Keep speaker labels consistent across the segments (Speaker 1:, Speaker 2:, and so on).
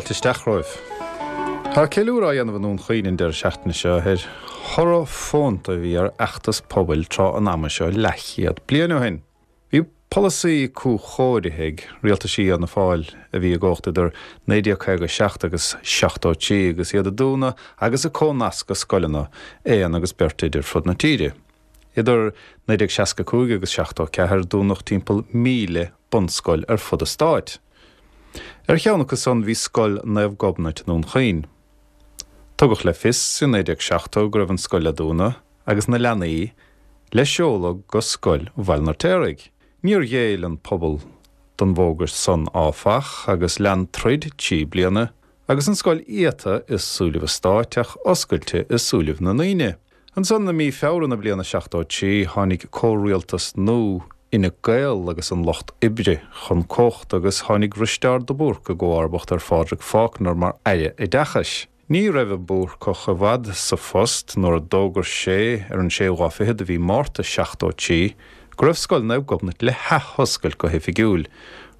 Speaker 1: Fáilte isteach romhaibh. Tá ceiliúradh á dhéanamh i nDún Chaoin an deireadh seachtaine seo ar thoradh fónta a bhí ar fheachtas pobail tráth an ama seo leathchéad bliain ó shin. Bhí polasaí cúchóirithe ag rialtaisí Fhianna Fáil a bhí i gcumhacht idir 1957 agus 73 agus iad ag dúnadh agus ag comhnascadh scoileanna aon agus beirt oide ar fud na tíre. Idir 1965 agus 74 dúnadh timpeall 1,000 bunscoil ar fud an stáit. Ar cheann acu san bhí Scoil Naomh Gobnait i nDún Chaoin. Tugadh le fios i 1970 go raibh an scoil le dúnadh agus na leanaí le seoladh go Scoil Bhaile an Fheirtéaraigh. Níor ghéill an pobal don bhfógairt san áfach agus lean troid 3 bliana agus an scoil iata i súilibh an stáit ach oscailte i súilibh na ndaoine. Ansan i mí Feabhra na bliana 73 tháinig comhrialtas nua Fhine Gael agus an Lucht Oibre chun cumhachta agus tháinig Risteárd de Búrca i gcomharbacht ar Phádraig Faulkner mar Aire Oideachais. Ní raibh an Búrcach i bhfad sa phost nuair a d'fhógair sé ar an séú lá fichead de mhí Márta 73 go raibh Scoil Naomh Gobnait le hathoscailt go hoifigiúil,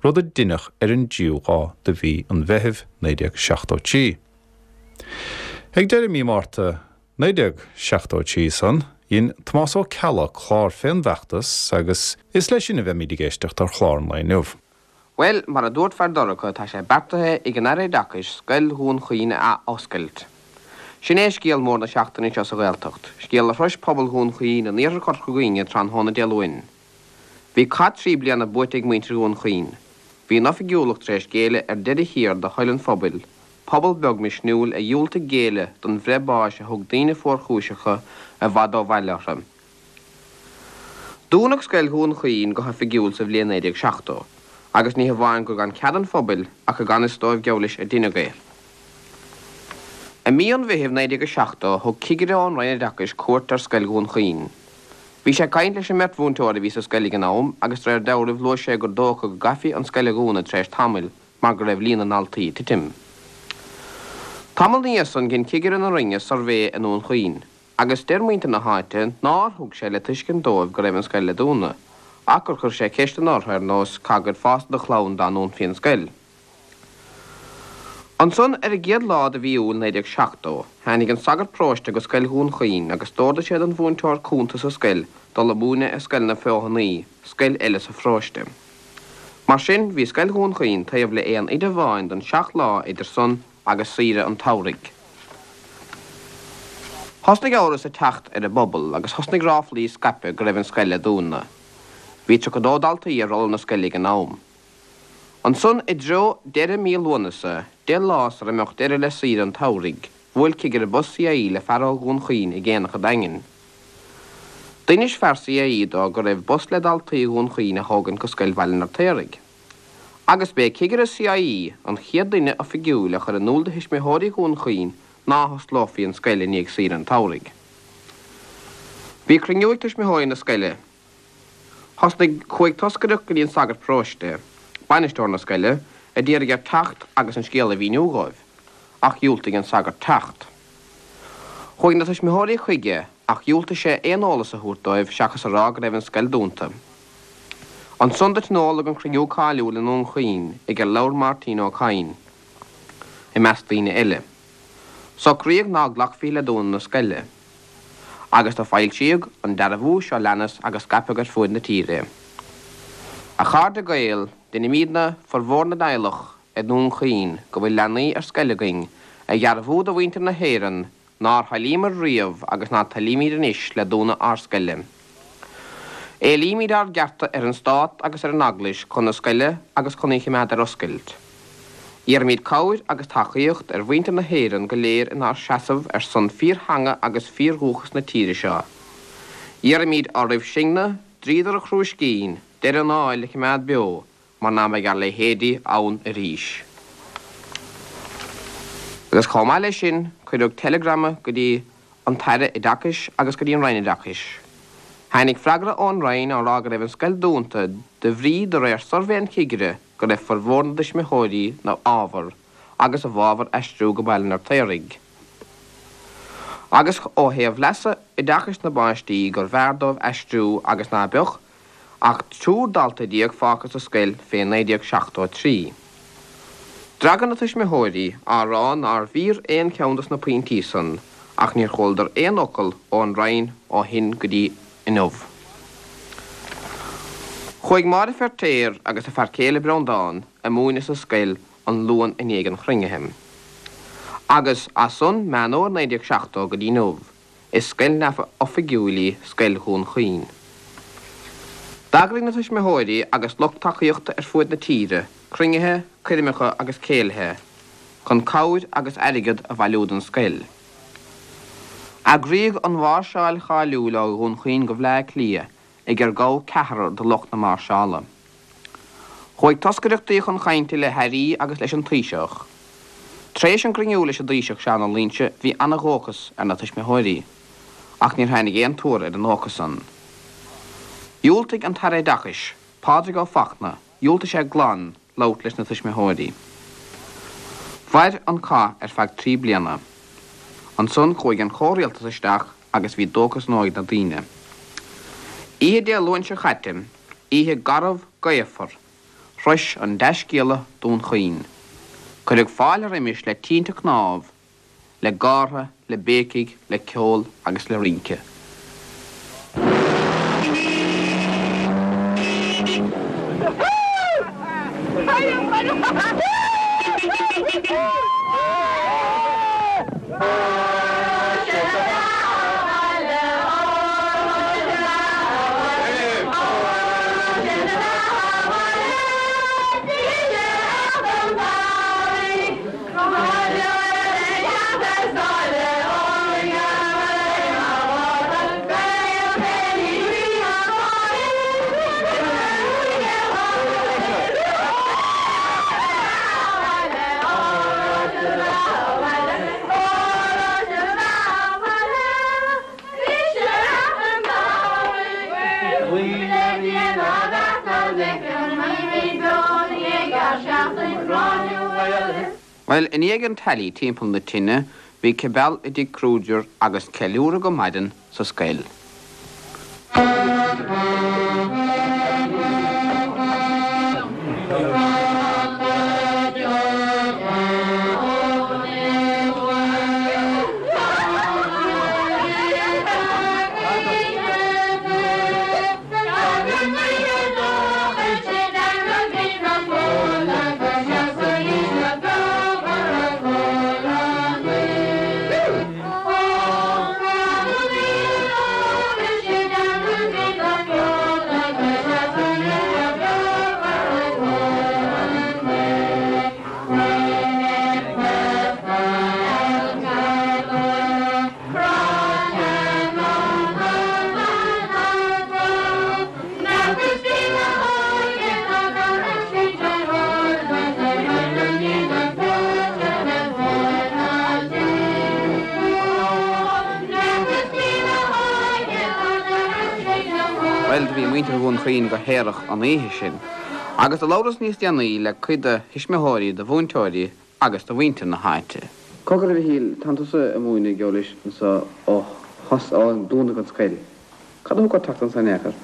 Speaker 1: rud a deineadh ar an dtríú lá de mhí an Mheithimh 1973. Ag deireadh mí Márta 1973 san, dhein Tomás Ó Ceallaigh clár fén bhfeachtas agus is leis sin a bheimíd ag éisteacht ar chlár an lae inniu.
Speaker 2: Bhuel, mar a dúirt Feardorcha, tá sé beartaithe ag an Aire Oideachais Scoil Dhún Chaoin a ath-oscailt. Sin é scéal mór na seachtaine seo sa Ghaeltacht, scéal a shrois pobal Dhún Chaoin in iarthar Chorca Dhuibhne tráthnóna Dé Luain. Bhí cath 3 bliana buaite ag muintir Dhún Chaoin. Bhí an oifigiúlacht tar éis géilleadh ar deireadh thiar do thoil an phobail, pobal beag misniúil a dhiúltaigh géilleadh don bhreith báis a thug daoine fuarchúiseacha i bhfad ó bhaile orthu. Dúnadh Scoil Dhún Chaoin go hoifigiúil sa bhliain 1970, agus ní hamháin gur gan cead an phobail ach i gan fhios dóibh geall leis a deineadh é. I mí an Mheithimh 1970 thug cigire ón Roinn Oideachais cuairt ar Scoil Dhún Chaoin. Bhí sé ag caint leis an mbeirt mhúinteoir a bhí sa scoil ag an am agus de réir dealraimh luaigh sé gur dócha go gcaithfí an scoil a dhúnadh tar éis tamaill mar go raibh líon na ndaltaí ag titim. Tamall ina dhiaidh san dhein cigire na Roinne suirbhé i nDún Chaoin agus deir muintir na háite nár thug sé le tuiscint dóibh go raibh an scoil le dúnadh ach gur chuir sé ceisteanna orthu ar nós cá gcuirfeása do chlann dá ndúnfaí an scoil. Ansan ar an gcéad lá de mhí Iúil 1970 tháinig an sagart paróiste go Scoil Dhún Chaoin agus d'órdaigh sé don mhúinteoir cúnta sa scoil dul a múineadh i Scoil na Feothanaí, scoil eile sa pharóiste. Mar sin, bhí Scoil Dhún Chaoin taobh le aon oide amháin don seacht lá idir san agus saoire an tsamhraidh. Thosnaigh amhras ag teacht ar an bpobal agus thosnaigh ráflaí ag scaipeadh go raibh an scoil le dúnadh. Bhí 32 daltaí ar rolla na scoile ag an am. Ansan i dtreo deireadh mí Lúnasa, 10 lá sara mbeadh deireadh le saoire an tsamhraidh, bhuail cigire bus CIE le fear ó Dhún Chaoin ag aonach an Daingin. D'inis fear CIE dó go raibh bus le daltaí Dhún Chaoin a thógaint go scoil Bhaile an Fheirtéaraigh. Agus b'é cigire CIE an chéad duine oifigiúil a chuir in iúl do thuismitheoirí Dhún Chaoin ná hosclófaí an scoil i ndiaidh saoire an tsamhraidh. Bhí cruinniú ag tuismitheoirí na scoile. Thosnaigh, chuaigh toscaireacht go dtí an sagart paróiste, bainisteoir na scoile, a d'iarraidh air teacht agus an scéal a mhíniú dhóibh, ach dhiúltaigh an sagart teacht. Chuaigh na tuismitheoirí chuige ach dhiúltaigh sé aon eolas a thabhairt dóibh seachas a rá go raibh an scoil dúnta. Ansan do tionóladh an cruinniú cáiliúil i nDún Chaoin ag ar labhair Máirtín Ó Cadhain, i measc daoine eile. Socraíodh ná glacfaí le dúnadh na scoile. Agus do foilsíodh an dearbhú seo leanas agus scaipeadh ar fuaid na tíre é. A chairde Gael, deinimídne, formhór na dteaghlach i nDún Chaoin go bhfuil leanaí ar scoil againn, a dhearbhú do mhuintir na hÉireann nár thoilíomar riamh agus ná toilímíd anois le dúnadh ár scoile. Éilímíd ár gcearta ar an Stát agus ar an Eaglais chun na scoile agus chun í chimeád ar oscailt. Iarraimíd cabhair agus tacaíocht ar mhuintir na hÉireann go léir inár seasamh ar son fíor-theanga agus fíor-dhúchas na tíre seo. Iarraimíd oraibh sinne, dríodar an chrúiscín, deireadh an áil a chimeád beo mar ná beidh ár leithéidí ann arís. Agus chomh maith leis sin, cuireadh teileagrama go dtí an tAire Oideachais agus go dtí an Roinn Oideachais. Tháinig freagra ón Roinn á rá go raibh an scoil dúnta de bhrí, de réir suirbhé an chigire, go raibh formhór na dtuismitheoirí 'na fhábhar agus i bhfabhar aistriú go Baile an Fheirtéaraigh. Agus ó thaobh leasa oideachais na bpáistí gur bhfearr dóibh aistriú agus ná beadh ach triúr dalta fágtha sa scoil fé 1973. D'fhreagair na tuismitheoirí á rá nárbh fhíor aon cheann dos na pointí san ach níor chualadar aon fhocal ón Roinn ó shin go dtí inniu. Chuaigh Máire Feirtéar agus a fear céile Breandán a múineadh sa scoil an Luan i ndiaidh an chruinnithe. Agus as san, Meán Fhómhair 1970 go dtí inniu, Is scoil neamhoifigiúil í Scoil Dhún Chaoin. D'eagraigh na tuismitheoirí agus lucht tacaíochta ar fuaid na tíre cruinnithe, coirmeacha agus céilithe chun cabhair agus airgead a bhailiú don scoil. Eagraíodh an mháirseáil cháiliúil ó Dhún Chaoin go Bhleá Cliath ag ar gabhadh ceathrar de lucht na máirseála. Chuaigh toscaireachtaí chun cainte le hairí agus leis an Taoiseach. Tar éis an gcruinniú leis an dTaoiseach Seán Ó Loingsigh bhí ana-dhóchas ar na tuismitheoirí, ach níor tháinig aon tuar ar an ndóchas san. Dhiúltaigh an tAire Oideachais, Pádraig Ó Fachtna, dhiúltaigh sé glan labhairt leis na tuismitheoirí. Mhair an cath ar feadh 3 bliana. Ansan chuaigh an comhrialtas isteach agus bhí dóchas nua ag na daoine. Oíche Dé Luain seo chaite, oíche garbh gaofar, shrois an dea-scéala Dún Chaoin. Cuireadh fáilte roimis le tinte cnámh, le gártha, le béicigh, le ceol agus le rince. Bhuel, i ndiaidh an teailí timpeall na tine, bhí cibeal i dtigh Kruger agus ceiliúradh go maidin sa scoil. Bhuel, do bhí muintir Dhún Chaoin go haerach an oíche sin, agus do labhras níos déanaí le cuid de thuismitheoirí, de mhúinteoirí agus de mhuintir na háite. Cogar a Mhichíl, tánn tusa ag múineadh anois anso ó thos, ó dúnadh an scoil. Cad a thug ort teacht anso in aon chor?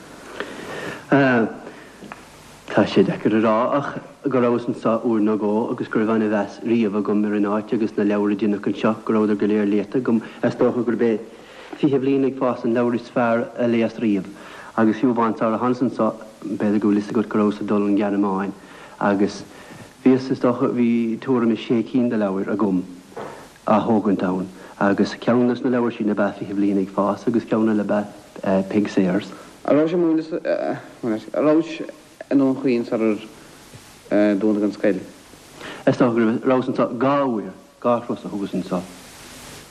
Speaker 3: Tá sé deacair a rá ach go rabhas anso uair nó dhó agus go raibh ana-mheas riamh agam ar an áit agus na leabhair a deineadh anseo, go rabhadar go léir léite agam. Is dócha gurb é Fiche Bliain ag Fás an leabhar is fearr a léas riamh. Agus fiú amháin sara thánas anso, b'fhéidir go bhfuil fhios agat go rabhas ag dul an Ghearmáin agus bhíos, is dócha, bhí tuairim is sé cinn de leabhair agam á thógaint ann agus ceann des na leabhair sin ab ea Fiche Bliain ag Fás agus ceann eile ab ea Peig Sayers.
Speaker 2: An rabhais ag múineadh, an rabhais i nDún Chaoin sarar dúnadh an scoil?
Speaker 3: Is dócha go raibh, rabhas anso dhá uair. Dhá thuras a thugas anso.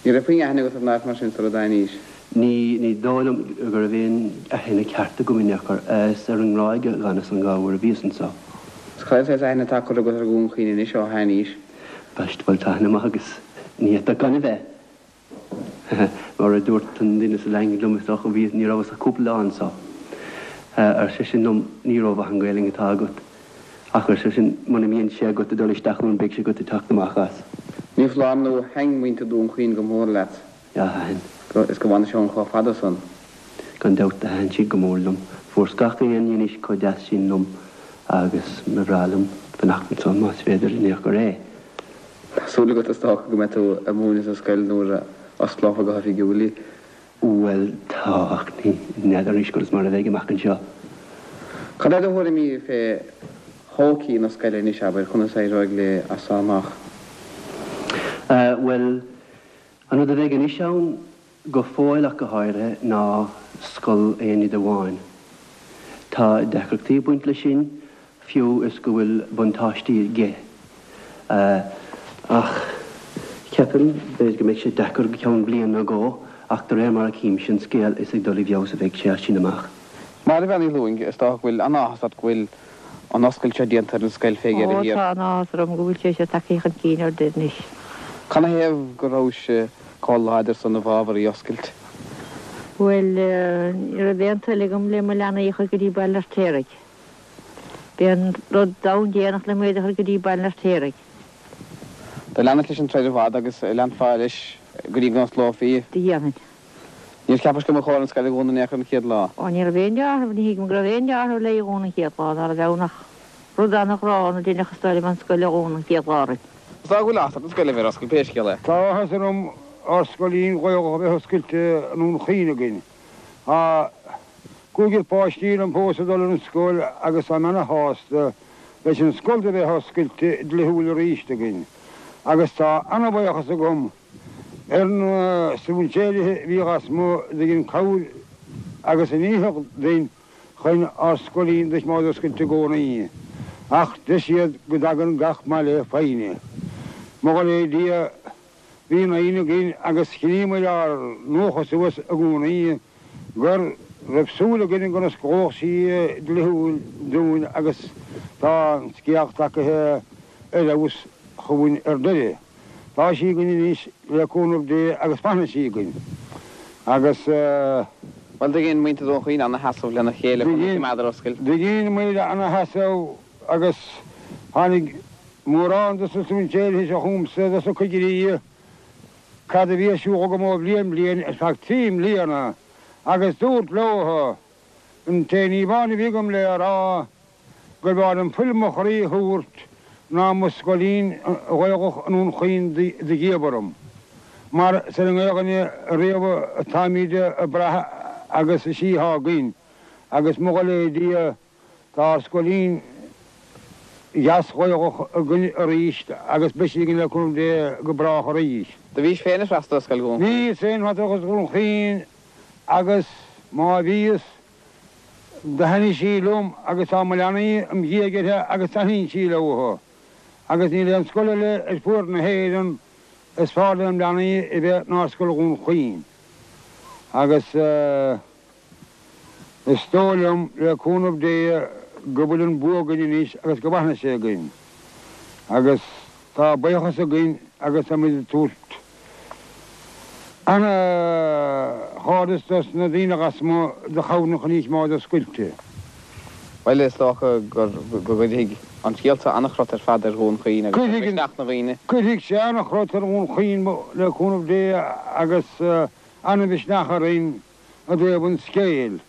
Speaker 2: Ní raibh puinn aithne agat ar an áit mar sin sara dtáinís?
Speaker 3: Ní, ní dóigh liom go raibh aon aithne ceart agam in aon chor. Is ar an nGráig a dh'fhanas an dhá uair a bhíos anso.
Speaker 2: Is cad é an saghas aithne atá curtha agat ar Dhún Chaoin anois ó tháinís?
Speaker 3: Baist, bhuel tá aithne maith agus ní fhéadfadh gan a bheith. Mar a dúirt an duine sa Daingean liom, is dócha, bhí, ní rabhas ach cúpla lá anso. Ar seisean liom, ní rómhaith an Ghaelainn atá agat. Ach, ar seisean, muna mbíonn sé agat ag dul isteach ann, beidh sé agat ag teacht amach as.
Speaker 2: Ní foláir nó thaitn muintir Dhún Chaoin go mór leat.
Speaker 3: Yeah, thaitn.
Speaker 2: Is go bhfanais ann chomh fada san.
Speaker 3: Gan dabht, thaitn siad go mór liom. Fuaireas gach aon ní anois chomh deas sin liom agus ba bhreá liom fanacht anso más féidir in aon chor é.
Speaker 2: Tá súil agat is dócha go mbeidh tú ag múineadh sa scoil nuair a osclófar go hoifigiúil í.
Speaker 3: Bhuel, tá, ach ní n'fheadar anois conas mar a bheidh amach anseo.
Speaker 2: Cad é do thuairimí fé thodhchaí na scoile anois, abair, conas a éireoidh léi as seo amach?
Speaker 3: Bhuel, an rud a bheidh anois ann, go fóill ach go háirithe, ná scoil aon oide amháin. Tá deacrachtaí ag baint leis sin, fiú is go bhfuil buntáistí aige. Ach ceapaim, b'fhéidir go mbeidh sé deacair go ceann bliain nó dhó, ach de réir mar a chímse an scéal, is ag dul i bhfeabhas a bheidh sé as sin amach.
Speaker 2: Máire Bhean Uí Lúing, is dócha go bhfuil an-áthas ort go bhfuil an oscailt seo déanta ar an scoil fé dheireadh
Speaker 4: Ó,
Speaker 2: thiar.
Speaker 4: tá an-áthas orm go bhfuil sé seo tagtha chun cinn ar deireadh anois.
Speaker 2: Canathaobh go rabhais chomh láidir san i bhfabhar í oscailt?
Speaker 4: Bhuel, ní raibh aon toil agam le mo leanaí a chur go dtí Baile an Fheirtéaraigh. B'é an rud domhan déanach liom iad a chur go dtí Baile an Fheirtéaraigh.
Speaker 2: Do leanais leis an troid i bhfad agus leanfá leis go dtí go n-osclófaí í.
Speaker 4: Do dhéanfainn.
Speaker 2: Níor cheapais go mba chóir an scoil a dhúnadh in aon chor an chéad lá?
Speaker 4: Ó, ní raibh aon dealramh, ní thuigim go raibh aon dealramh léi a dhúnadh an chéad lá, ná raibh ann ach rud an-ghránna a deineadh is dóigh liom an scoil a dhúnadh an chéad lá orainn.
Speaker 2: Is dóigh go bhfuil áthas ort an scoil a bheith ar oscailt pé scéal é.
Speaker 5: Tá áthas orm ár scoilín Ghaelach a bheith oscailte i nDún Chaoin againn. Tá cúigear páistí liom fós ag dul ar an scoil agus táim ana-shásta leis an scoil do bheith oscailte dlíthiúil arís againn agus tá ana-bhuíochas agam ar na strainséirithe a bhí lasmuigh do dhein cabhair agus a ndícheall duinn chun ár scoilín do choimeád oscailte i gcónaí. Ach deir siad go dtagann gach maith le foighne. Mo dhul é Dia, bhí an fhoighne againn agus choinníomair ár ndóchas suas i gcónaí go raibh súil againn go n-osclódh sí dlíthiúil dúinn agus tá an scéal tagaithe ar fheabhas chugainn ar deireadh. Tá sí againn anois le cúnamh Dé agus fanfaidh sí againn. Agus.
Speaker 2: Bhuel, do dhein muintir Dhún Chaoin ana-sheasamh lena chéile chun í a choimeád ar oscailt.
Speaker 5: Do dhein muid ana-sheasamh agus tháinig mórán dos na strainséirithe seo chugamsa, dos na cigirí, cad a bhí ar siúl agam ó bhliain bliain ar feadh trí mbliana agus dúrt leo an t-aon ní amháin a bhí agam le rá gur bhfearr liom fuil mo chroí a thabhairt ná mo scoilín Ghaelach i nDún Chaoin do dhíobh orm, mar is ar an nGaelainn a riamh atáimíd ag brath agus is í athá againn, agus mo dhul é Dia tá ár scoilín dheas Ghaelach againn arís agus beidh sí againn le cúnamh Dé go brách arís.
Speaker 2: Do bhís féin ag freastal ar scoil Dhún Chaoin?
Speaker 5: Bhíos féin ag freastal ar scoil Dhún Chaoin agus má bhíos Do thaitnigh sí liom agus tá mo leanaí im dhiaidh uirthi agus taitníonn sí leo. Agus níl aon scoil eile ar fuaid na hÉireann is fearr lem leanaí a bheith ná Scoil Dhún Chaoin. Agus is dóigh liom, le cúnamh Dé, go bhfuil an bua againn anois agus go bhfanfaidh sé againn. Agus tá buíochas againn agus táimid ag tabhairt Ana-chairdeas dos na daoine lasmuigh do chabhraigh chun í a choimeád oscailte.
Speaker 2: Bhuel, is dócha go gcuirfidh an scéal seo an-chrot ar fad ar Dhún Chaoin agus ar mhisneach na ndaoine.
Speaker 5: Cuirfidh sé an-chrot ar Dhún Chaoin le cúnamh Dé agus an-mhisneach orainn i dtaobh an scéil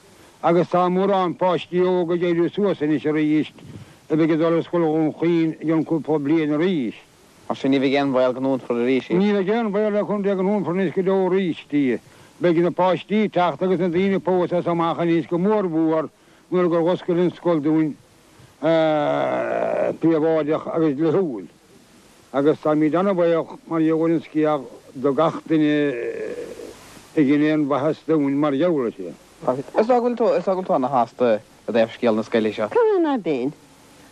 Speaker 5: agus tá mórán páistí óga ag éirí suas anois arís a bheidh ag dul ar Scoil Dhún Chaoin i gcionn cúpla bliain arís.
Speaker 2: Mar sin, ní bheidh aon bhaol go ndúnfar arís
Speaker 5: í. Ní bheidh aon bhaol le cúnamh Dé go ndúnfar anois go deo arís í. Beidh na páistí ag teacht agus na daoine fós as amach anois go mór mhór nuair gur oscail an scoil dúinn príobháideach agus dlíthiúil. Agus táimíd ana-bhaoch mar gheall ar an scéal do gach duine a dhein aon mhaitheas dúinn mar gheall uirthi.
Speaker 2: Is dóigh go bhfuil tú, is dóigh go bhfuil tú ana-shásta i dtaobh scéal na scoile seo.
Speaker 6: Cad é ná beinn?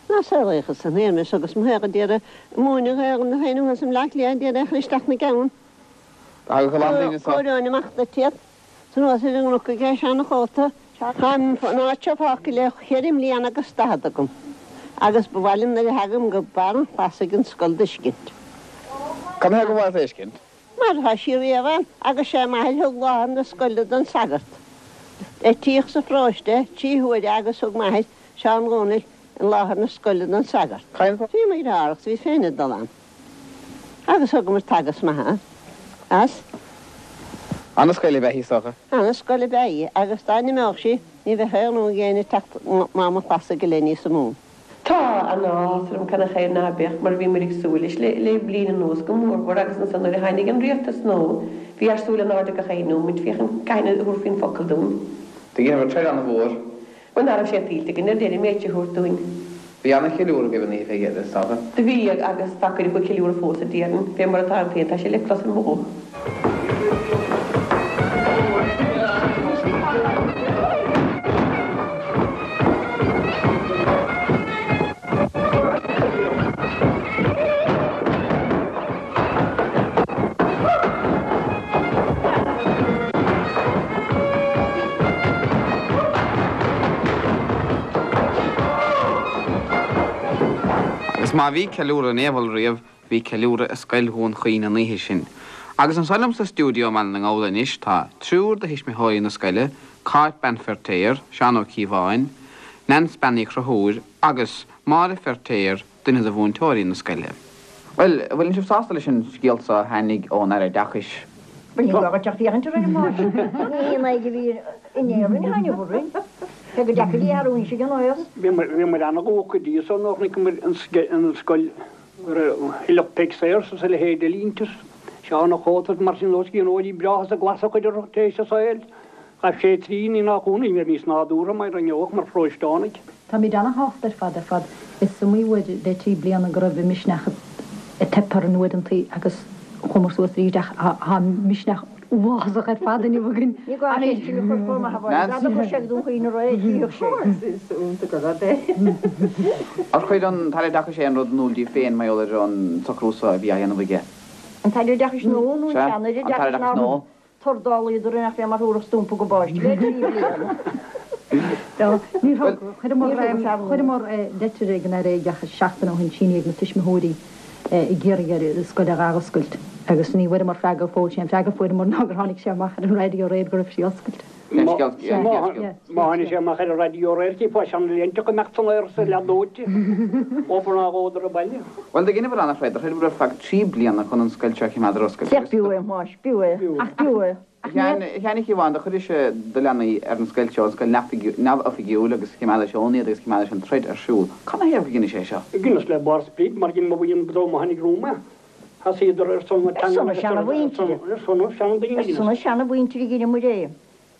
Speaker 6: Ná saolaíodh san Éirinn agus mo shaothar d'iarraidh múineadh ar na féin thuas i mBleá Cliath d'iarraidh a chur isteach 'na gceann.
Speaker 2: Thagadh a lán daoine
Speaker 6: anso. Chomhaireoinn amach duit iad. 'S anuas ar an gcnoc aige seana-chóta. Tá an áit seo fágtha le cheithre mbliana agus daichead agam agus ba mhaith liom nuair a thagaim go barr an chlasaigh an scoil d'fheiscint.
Speaker 2: Cad 'na thaobh gur mhaith leat a fheiscint?
Speaker 6: Mar tá sí riamh ann agus sé m'athair thug láthair na scoile don sagart. Eitíodh sa pharóiste trí huaire agus thug m'athair, Seán Dhónaill, an láthair na scoile don sagart. Bhí mo dheartháir agus bhíos féin ag dul ann agus thugamar teagasc maith ann as.
Speaker 2: Ana-scoil ab ea í, is dócha.
Speaker 6: Ana-scoil ab ea í agus dá n-imeodh sí ní bheadh aon rún ag éinne teacht Mám an Chlasaigh go leith níos mó.
Speaker 7: Tá. an-áthas orm canathaobh ná beadh, mar bhí muid ag súil leis le bliain anuas go mórmhór agus ansan nuair a tháinig an rialtas nua bhí ár súil in airde gach aon nóimint féachaint cathain a thabharfaí an focal dúinn.
Speaker 2: Do dheineabhair troid an-mhór.
Speaker 7: Bhuel ná raibh sé tuillte againn ar deireadh an méid seo a thabhairt dúinn.
Speaker 2: Bhí an-cheiliúradh agaibh an oíche fé dheireadh, is dócha.
Speaker 7: Do bhí, agus tá cuid acu ag ceiliúradh fós a déarfainn, fé mar atáim féin, tá sé le clos ar mo ghuth.
Speaker 2: Agus má bhí ceiliúradh in Éabhal riamh, bhí ceiliúradh i Scoil Dhún Chaoin an oíche sin. Agus anso liom sa stiúideo i mBaile na nGall anois tá triúr de thuismitheoirí na scoile, Cáit Bean Feirtéar, Seán Ó Cíobháin, Neans Bean Uí Chonchúir agus Máire Feirtéar, duine de mhúinteoirí na scoile. Bhuel, an bhfuileann sibh sásta leis an scéal so a tháinig ón Aire Oideachais?
Speaker 4: Bhuel, ní gá dhuit ach féachaint orainn, a Mháire. Ní haon aghaidh a bhí in Éirinn a tháinig orainn. Cé gur deacair í a athrú anois ag an aos.
Speaker 5: Bhíomar ana-dhócha go dtí so nuair a chonaiceamar an scoil go raibh Philip Peig Sayers is a leithéid de línte, Seán Ó Cóta is mar sin dó, scríbhneoirí breátha is a glas a chuid orthu tar éis a saoil. Ghabh sé tríd, ní nach ionadh, ní raibh níos nádúrtha mar a ngeobhadh mar pharóisteánaigh.
Speaker 8: Táimid ana-shásta ar fad ar fad. Is iomaí uair le trí bliana go raibh an misneach ag teip orainn uaireantaí agus chuamar suas arís ach tá misneach uafásach ar fad inniu againn.
Speaker 4: Ní gá é sin a chur chomh maith a Mháire, dá dtiocfadh sé go Dún Chaoin aréir, tchífeadh sé.
Speaker 7: Is iontach an rud é.
Speaker 2: Ar chuir an tAire Oideachais aon rud in iúl daoibh féin mar gheall ar an socrú so a bhí á dhéanamh aige?
Speaker 4: An tAire Oideachais nua nó an sean-Aire
Speaker 2: Sea, an tAire
Speaker 4: Oideachais
Speaker 2: Oideachais
Speaker 4: nár
Speaker 2: nua.
Speaker 4: Tordálaíodar nach fé mar thabharfadh stumpa go bpáiste le trí bliana.
Speaker 8: Ní thug. Chuireamar leitir ag an Aire Oideachais seachtain ó shin, sínithe ag na tuismitheoirí, ag iarraidh air an scoil a dh'athoscailt agus ní bhfuaireamar freagra go fóill. Sé an freagra a fuaireamar ná gur tháinig sé amach ar an raidió aréir go raibh sí oscailte.
Speaker 5: Má tháinig sé amach ar an raidió aréir, chífeá seanléinte ag imeacht san aer is leath dóite, obair ná dhódar an baile.
Speaker 2: Bhuel, do dheineabhair an-throid, do throideabhair ar feadh 3 bliana chun an scoil seo a chimeád ar oscailt
Speaker 4: agus. B'fhiú é, a Mháis, b'fhiú é, ach b'fhiú é.
Speaker 2: A Sheáin Uí Chíobháin, do chuiris do leanaí ar an scoil seo, an scoil neamhoifigiúil, agus chimeádais ann iad agus chimeádais an troid ar siúl. Cad 'na thaobh gur dheinis é seo?
Speaker 5: Dheineas le barr sprid, mar dhein mo bhuíon go dtí mo tháinig romham é. Thosaíodar ar son na teangan agus ar son na seandaoine.
Speaker 4: Ar son na seanamhuintire a dheineamair é.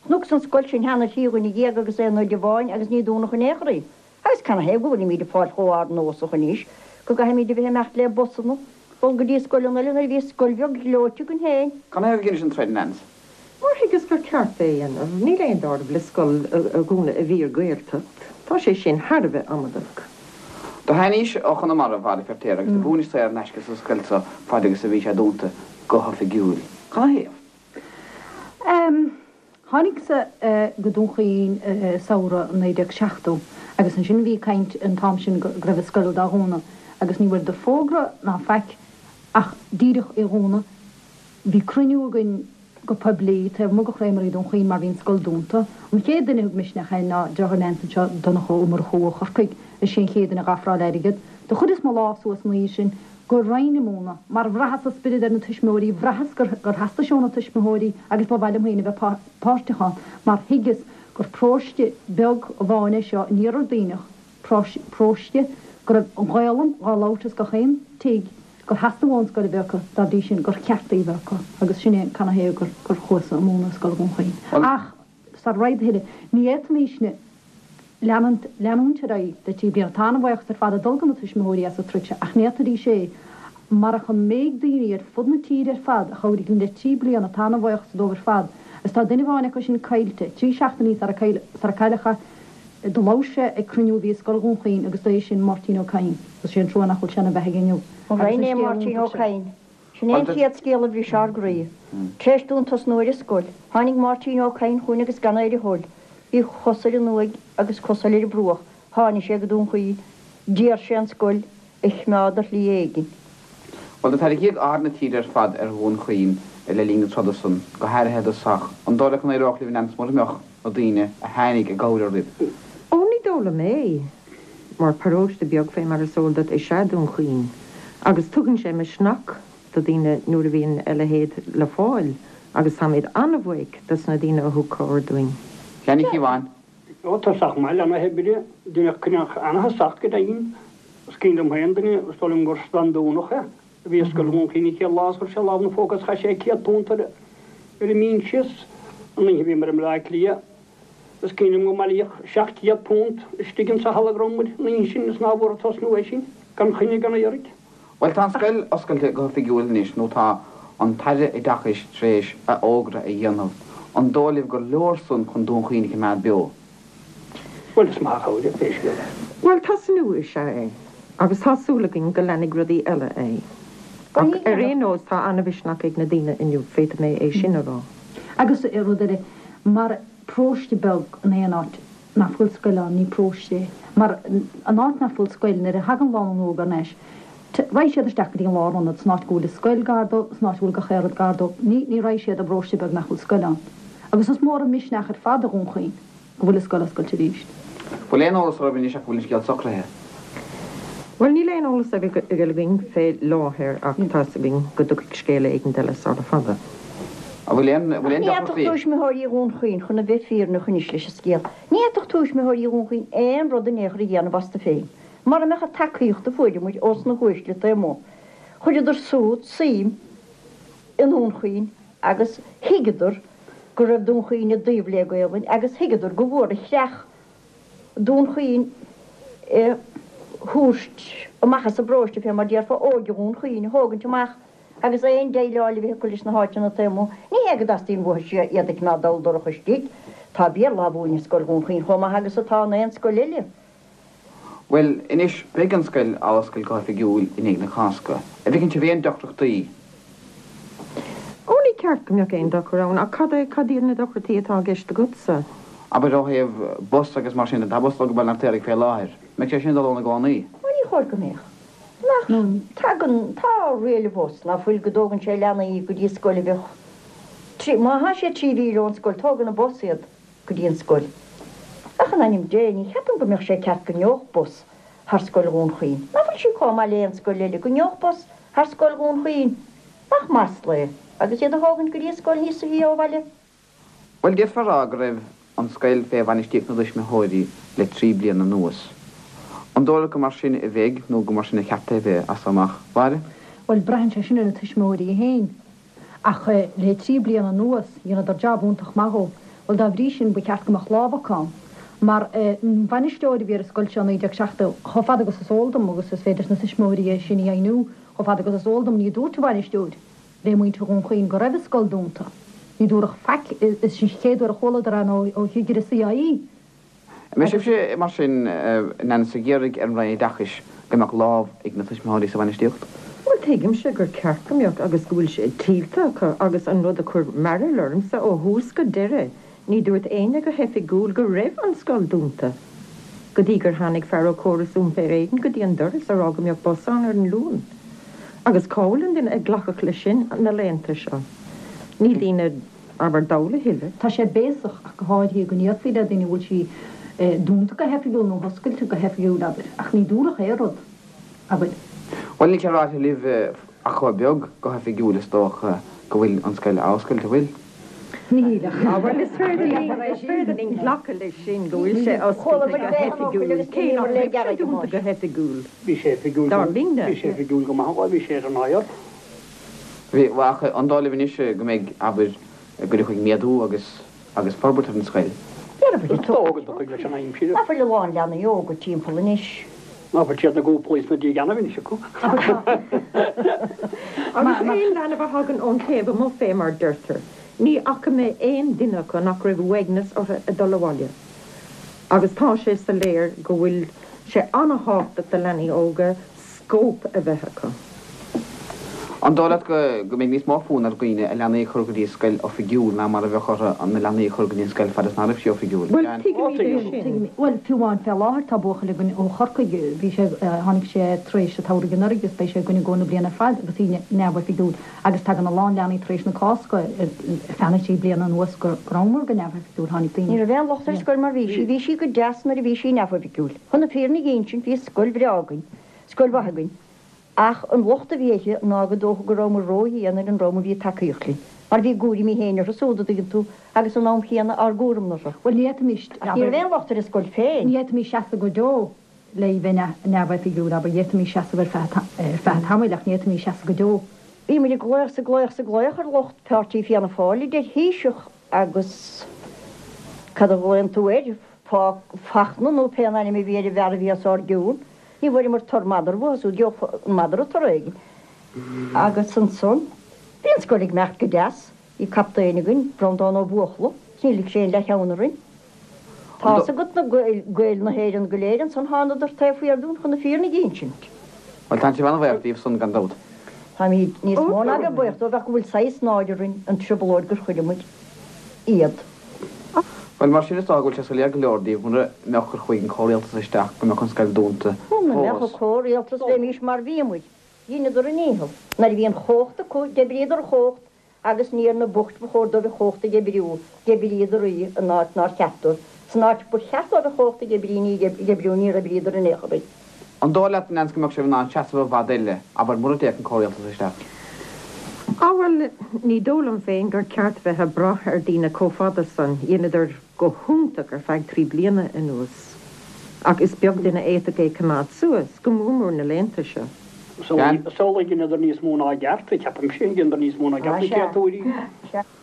Speaker 4: Chonacsa an scoil sin cheana thrí dhuine dhéag agus aon oide amháin agus ní dúnadh in aon chor í. Agus canathaobh go bhfuilimíd ag fáil chomh ardnósach anois go gcaithfimíd a bheith ag imeacht le busanna, dul go dtí scoileanna eile nuair a bhí scoil bheag ghleoite againn féin.
Speaker 2: Canathaobh a dheinis an troid, Nance?
Speaker 9: Mar thuigeas gur ceart é a dhéanamh. Níl aon deáramh le scoil a dhúnadh i bhfíor-Ghaeltacht. Tá sé sin thar a bheith amadach.
Speaker 2: Do tháinís ó Chonamara, a Mháire Feirtéar, agus do mhúinis saor in aisce sa scoil so faid agus a bhí sé dúnta go hoifigiúil. Canathaobh?
Speaker 8: Tháinigeas-sa go Dún Chaoin i samhradh 1970 agus ansin bhí caint an t-am sin go raibh an scoil dá dhúnadh agus ní bhfuaireadar fógra ná faic ach díreach í dhúnadh. Bhí cruinniú againn go poiblí taobh amuigh de Chreamery Dún Chaoin mar bhí an scoil dúnta. An chéad duine a thug misneach é ná deartháir Nance anseo, Donncha Ó Murchú ó Chorcaigh. Is é an chéad duine a dh'ofráil airgead. Do chuireas mo lámh suas an oíche sin go raghainn i mbun, mar bhraitheas an spiorad ar na tuismitheoirí, bhraitheas gur theastaigh sé ó na tuismitheoirí agus ba mhaith liom féin a bheith páirteach ann mar thuigeas gur paróiste beag amháin é seo in Iarthar Duibhneach, paróiste go raibh an Ghaolainn dhá labhairt as gach aon tigh, gur theastaigh uathu an scoil a bheith acu, dá bhrí sin gur cheart í a bheith acu agus sin é canathaobh gur gur chuas-sa ag múineadh i Scoil Dhún Chaoin. Ach sara raghad a thuilleadh, ní fhéadfaimisne leanúint leanúint ar aghaidh le trí bliana. Tá an-bhuíochas ar fad ag dul go na tuismitheoirí as an troid seo ach ní fhéadfaidís é marach an méid daoine ar fud na tíre ar fad a chabhraigh linn le trí bliana. Tá an-bhuíochas dóibh ar fad agus tá duine amháin acu sin caillte, trí seachtainí sara cailleadh é. Do labhair sé ag cruinniú a bhí i Scoil Dhún Chaoin agus ba é sin Máirtín Ó Cadhain agus sé an trua nach bhfuil sé ina bheathaidh inniu.
Speaker 4: An
Speaker 8: Agus
Speaker 4: raibh
Speaker 8: an
Speaker 4: é
Speaker 8: scéal
Speaker 4: Máirtín Ó
Speaker 8: iontach sin.
Speaker 4: Cadhain? Sin é an chéad scéal a bhris ár gcroí. Tar éis dúinn tosnú ar an scoil, tháinig Máirtín Ó Cadhain chugainn agus gan é ar a thoil. Bhí cos ar an uaigh agus cos eile ar an bruach. Tháinig sé go Dún Chaoin. D'iarr sé an scoil a choimeád ar shlí éigin.
Speaker 2: Bhuel, do tarraingíodh aird na tíre ar fad ar Dhún Chaoin le linn na troda san, go háirithe i dtosach. An dóigh leat go n-éireodh libh, Nance, mura mbeadh na daoine a tháinig i gcabhair oraibh?
Speaker 9: Ó, ní dóigh liom é, mar paróiste beag fé mar is eol duit is ea Dún Chaoin, agus tugann sé misneach do daoine nuair a bhíonn a leithéid le fáil, agus táimid an-bhuíoch dos na daoine a thug cabhair dúinn.
Speaker 2: Sheáin Uí Chíobháin.
Speaker 5: Ó, tosach maith le na hoibre, deineadh coinneach ana-thosach go deimhin.
Speaker 10: Is cuimhin liom féin duine, is dóigh liom gur Standúnach é, a bhí i Scoil Dhún Chaoin an chéad lá is chuir sé lámh ina phóca is chaith sé £100 ar ar an mbinse is an oíche a bhíomar i mBleá Cliath is cuimhin liom go mbailíodh £700 istigh insa halla go raibh muid an oíche sin is ná bhfuair tosnú é sin gan choinne gan iarraidh.
Speaker 2: Bhuel tá an scoil oscailte go hoifigiúil anois nó tá an tAire Oideachais tar éis a fhógra a dhéanamh. An dóigh libh gur leor san chun Dún Chaoin a choimeád beo?
Speaker 10: Bhuel, is maith an chabhair é pé scéal é.
Speaker 9: Bhuel, tosnú is ea é, agus tá súil againn go leanfaidh rudaí eile é. Ach ar aon nós, tá an-mhisneach ag na daoine inniu, féadfaidh mé é sin a rá.
Speaker 8: Agus rud eile, mar paróiste beag in aon áit nach bhfuil scoil ann, ní paróiste é. Mar an áit nach bhfuil scoil, nuair a thagann lánúin óg thar n-ais, raghaidh siad isteach go dtí an lárionad, san áit go bhfuil an scoil gar dó, san áit a bhfuil gach aon rud gar dó. Ní, ní raghaidh siad i bparóiste beag nach bhfuil scoil ann. Agus is mór an misneach ar fad do Dhún Chaoin go bhfuil an scoil oscailte arís.
Speaker 2: Bhfuil aon eolas oraibh anois ach go bhfuil an scéal socraithe?
Speaker 9: Bhuel, níl aon eolas againn fé láthair ach tá's againn go dtiocfaidh scéala éigint eile sara fada.
Speaker 2: An bhfuil aon, bhfuil aon
Speaker 4: Ní fhéadfadh
Speaker 2: deacrachtaí?
Speaker 4: tuismitheoirí Dhún Chaoin, chun a bheith fírinneach anois leis an scéal, ní fhéadfadh tuismitheoirí Dhún Chaoin aon rud in aon chor a dhéanamh astu féin mara mbeadh an tacaíocht a fuaireamair ós na huaisle taobh amuigh. Chuireadar súd suim i nDún Chaoin agus thuigeadar go raibh Dún Chaoin i dtaobh le Gaolainn agus thuigeadar gur mhór an chreach Dún Chaoin a thabhairt amach as an bparóiste, fé mar déarfá, óige Dhún Chaoin a thógaint amach agus aon déileáil a bheith acu leis na háiteanna taobh amuigh. Ní hé go dteastaíonn uathu iad a choimeád dall dorcha istigh. Tá Béarla á mhúineadh i Scoil Dhún Chaoin chomh maith agus atá in aon scoil eile.
Speaker 2: Bhuel, anois, beidh an scoil á oscailt go hoifigiúil i ndiaidh na Cásca. An bhfeiceann sibh aon deacrachtaí?
Speaker 9: Ó, ní ceart go mbeadh aon dochar ann, ach cad é, cad iad na deacrachtaí atá i gceist agatsa?
Speaker 2: Abair ó thaobh bus agus mar sin de, tá bus ag dul go Baile an Fheirtéaraigh fé láthair. Mbeidh sé sin ag dul ann i gcónaí?
Speaker 4: Ó, ní chóir go mbeadh. Nach, tagann, tá riail an bhus, ná fuil, go dtógann sé leanaí go dtí scoil a bheadh trí, má thá sé trí mhíle ón scoil, tógann an bus iad. go dtí an scoil. Ach in ainm Dé, ní cheapaim go mbeadh sé ceart go ngeobhadh bus thar scoil Dhún Chaoin. Ná fuil sí comh maith le aon scoil eile, go ngeobhadh bus thar scoil Dhún Chaoin? Nach masla é, agus iad a thógaint go dtí an scoil níosa shia ó bhaile?
Speaker 2: Bhuel, d'fhéadfá a rá go raibh an scoil fé bhainistíocht na dtuismitheoirí le trí bliana anuas. An dóigh leat gur mar sin a bheidh nó gur mar sin a cheart é a bheith as so amach, Mháire?
Speaker 8: Bhuel, braitheann sé sin ar na tuismitheoirí féin. Ach le trí bliana anuas, dheineadar jab iontach maith dhó. Bhuel, dá bhrí sin, ba cheart go mbeadh lámh acu ann. Mar an bhainisteoir a bhí ar an scoil seo i 1970, chomh fada agus is eol dom, agus is féidir leis na tuismitheoirí é sin a dheimhniú, chomh fada agus is eol dom, ní dúirt an bhainisteoir le muintir Dhún Chaoin go raibh an scoil dúnta. Ní dúradh faic. Is sin an chéad uair a chualadar é ná ó chigire CIE.
Speaker 2: An mbeidh sibhse, mar sin, in ainm is ag iarraidh ar an Roinn Oideachais go mbeadh lámh ag na tuismitheoirí sa bhainistíocht?
Speaker 9: Bhuel, tuigimse gur ceart go mbeadh agus go bhfuil sé tuillte acu agus an rud a chuir mearbhall ormsa ó thús go deireadh, ní dúirt éinne go hoifigiúil go raibh an scoil dúnta go dtí gur tháinig fear ó Chóras Iompair Éireann go dtí an doras a rá go mbeadh bus ann ar an Luan. Agus cá bhfuil an duine a ghlacfadh leis sin na laethanta seo? Níl daoine. abair dall a thuilleadh.
Speaker 8: Tá sé béasach ach go háirithe go ndéarfaí le daoine an bhfuil sí dúnta go hoifigiúil nó oscailte go hoifigiúil, abair. Ach ní dúradh aon rud, abair.
Speaker 2: Bhuel, níl sé ráite libh ach chomh beag go hoifigiúil is dócha go bhfuil an scoil á oscailt, an bhfuil?
Speaker 8: Níl ach.
Speaker 9: Á bhuel, is féidir linn, is féidir linn glacadh leis sin go bhfuil sé oscailte go hoifigiúil, cé nach raibh sé dúnta go hoifigiúil,
Speaker 10: Bhí sé oifigiúil
Speaker 9: dar linne.
Speaker 10: Bhí sé oifigiúil go maith, bhuel, bhí sé ar an aer.
Speaker 2: Bhí, ach an dóigh libh anois go mbeidh, abair, go dtiocfaidh méadú agus, agus forbairt ar an scoil?
Speaker 4: Déarfainn
Speaker 10: Is dócha go dtiocfaidh leis an aimsir.
Speaker 4: Ná fuil a lán leanaí óga timpeall anois.
Speaker 10: Ná fuil siad na gcúplaí sna dígeannaibh anois acu.
Speaker 9: Agus aon leanbh a thagann ón taobh amuigh fé mar deirtear, ní fhaca mé aon duine acu nach raibh uaigneas orthu ag dul abhaile. Agus tá sé soiléir go bhfuil sé ana-thábhachtach do leanaí óga scóip a bheith acu.
Speaker 2: An dóigh leat go go mbeidh níos mó fonn ar dhaoine a leanaí a chur go dtí scoil oifigiúil ná mar a bheadh orthu na leanaí a chur go dtí an scoil fad is ná raibh sí oifigiúil?
Speaker 9: Bhuel, tuigimid é sin.
Speaker 8: Bhuel, fiú amháin fé láthair tá buachaill againn ó Chorcaigh, bhí sé, tháinig sé tar éis an tsamhraidh anuraidh agus beidh sé againn i gcomhair na bliana ar fad agus í neamhoifigiúil agus tagann a lán leanaí tar éis na Cásca ar feadh na trí bliana anuas go rabhamar go neamhoifigiúil, tháinig daoine.
Speaker 4: Ní raibh aon locht ar an scoil mar bhí sí, bhí sí go deas nuair a bhí sí neamhoifigiúil. Chun na fírinne a dh'insint bhí scoil bhreá againn. Scoil mhaith againn. Ach an locht a bhí uirthi ná go dócha go rabhamar ró-dhian ar an dream a bhí ag tacaíocht linn, mar bhí a gcúraimí féin orthu súd, a dtuigeann tú, agus san am chéanna ár gcúram orthu.
Speaker 8: Bhuel, ní fhéadfaimis,
Speaker 4: Ach ní raibh aon locht ar an scoil féin.
Speaker 8: Ní fhéadfaimis seasamh go deo. le í bheith neamhoifigiúil, abair, d'fhéadfaimis seasamh ar feadh ar feadh tamaill ach ní fhéadfaimis seasamh go deo.
Speaker 4: Bhí muid ag glaoch 's ag glaoch 's ag glaoch ar lucht Páirtí Fianna Fáil, idir Thaoiseach agus cad a ghlaonn tú air, Fachtna nó pé an ainm a bhí ar an bhfear a bhí os ár gcionn. Ní bhfuaireamar tur madra uathu súd, gheobhadh an madra toradh éigin. Agus ansan, bhí an scoil ag imeacht go deas, bhí captaen againn, Breandán Ó Buachalla, 's níor lig sé aon leathcheann orainn. Tá's agat na Gaeil na hÉireann go léir ansan thánadar taobh thiar dúinn chun na fírinne a dh'insint.
Speaker 2: Bhuel, tá sibh an-bhaoch díobh san gan dabht.
Speaker 4: Táimid níos mó ná bheith buíoch dóibh ach go bhfuil saghas náire orainn an trioblóid gur chuir muid iad.
Speaker 2: Bhuel, mar sin is dócha go bhfuil sé soiléir go leor daoibh, mura mbeadh cur chuige an comhrialtas isteach, go mbeadh an scoil dúnta
Speaker 4: Muna mbeadh
Speaker 2: fós.
Speaker 4: an comhrialtas bheimís mar bhí muid. Dheineadar a ndícheall. Nuair a bhí an chumhacht acu, d'oibríodar an chumhacht Agus ní ar na boicht ba chóir dóibh an chumhacht a dh'oibriú, d'oibríodar í in áit nár cheart dóibh. San áit ba cheart dóibh an chumhacht a dh'oibrí ní dh'oibriú, níor oibríodar in aon chor í.
Speaker 2: An dóigh leat, a Neans, go mbeadh sibh in ann seasamh i bhfad eile, abair, mura dtéadh an comhrialtas isteach?
Speaker 9: Á bhuel, ní dóigh liom féin gur ceart bheith ag brath ar daoine chomh fada san. Dheineadar go hiontach ar feadh trí bliana anuas. Ach is beag duine a fhéadfadh é coimeád suas, go mór mór na laethanta seo.
Speaker 10: Samhlaigh dheineadar níos mó ná a gceart, ceapaimse, dheineadar níos mó ná a gceart na créatúirí.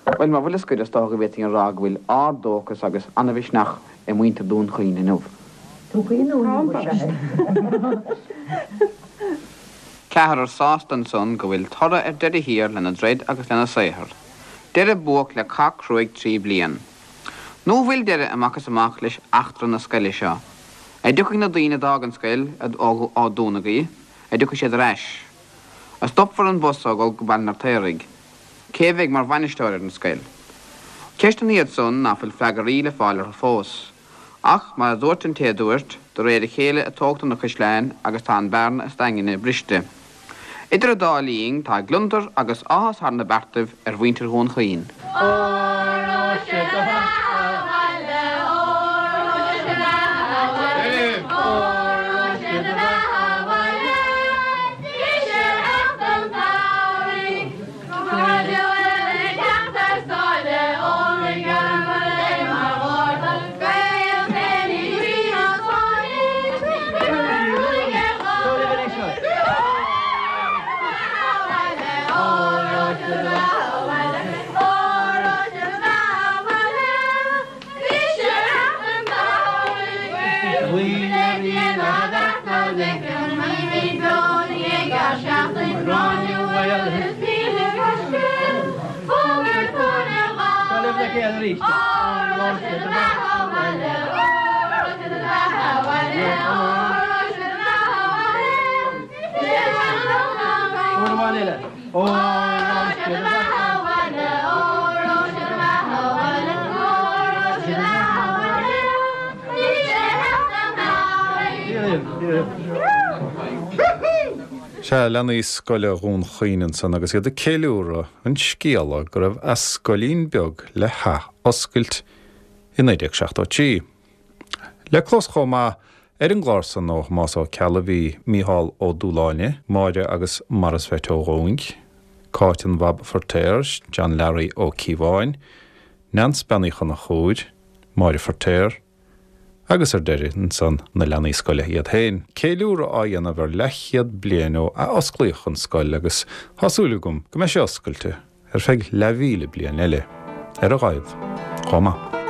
Speaker 2: Bhuel, mar bhuille scoir, is dócha go bhféadfainn a rá go bhfuil ard-dóchas agus an-mhisneach i muintir Dhún Chaoin inniu.
Speaker 4: Dún Chaoin inniu, is ea.
Speaker 2: Ceathrar sásta ansan go bhfuil toradh ar deireadh thiar lena dtroid agus lena saothar. Deireadh buach le cath cruaidh trí bliain. Nó an bhfuil deireadh amach is amach leis eachtra na scoile seo? A dtiocfaidh na daoine a d'fhág an scoil ó dúnadh í, a dtiocfaidh siad ar ais? A stopfar an bus ó dhul go Baile an Fheirtéaraigh? Cé a bheidh mar bhainisteoir ar an scoil? Ceisteanna iad san ná fuil freagraí le fáil orthu fós. Ach, mar a dúirt an té a dúirt, de réir a chéile a tógtar na caisleáin agus tá an bearna is daingne briste. Idir an dá linn, tá gliondar agus áthas thar na beartaibh ar mhuintir Dhún Chaoin.
Speaker 11: Óró sé do bheatha abhaile, óró sé do bheatha abhaile, óró sé do bheatha abhaile, bhí sé theacht an tsamhraidh.
Speaker 1: Sea, leanaí scoile Dhún Chaoin ansan agus iad ag ceiliúradh an scéala go raibh a scoilín beag le hath-oscailt i 1973. Le clos chomh maith ar an gclár san ó Thomás Ó Ceallaigh bhí Mícheál Ó Dúshláine, Máire agus Maurice Pheait Ó Dhúing, Cáit an Bhab Feirtéar, John Learaí Ó Cíobháin, Neans Bean Uí Chonchúir, Máire Feirtéar, Agus ar deireadh, ansan, na leanaí scoile iad féin. Ceiliúradh á dhéanamh ar leathchéad bliain ó athosclaíodh an scoil agus tá súil agam go mbeidh sé oscailte ar feadh leathmhíle bliain eile, ar a laghad, chomh maith.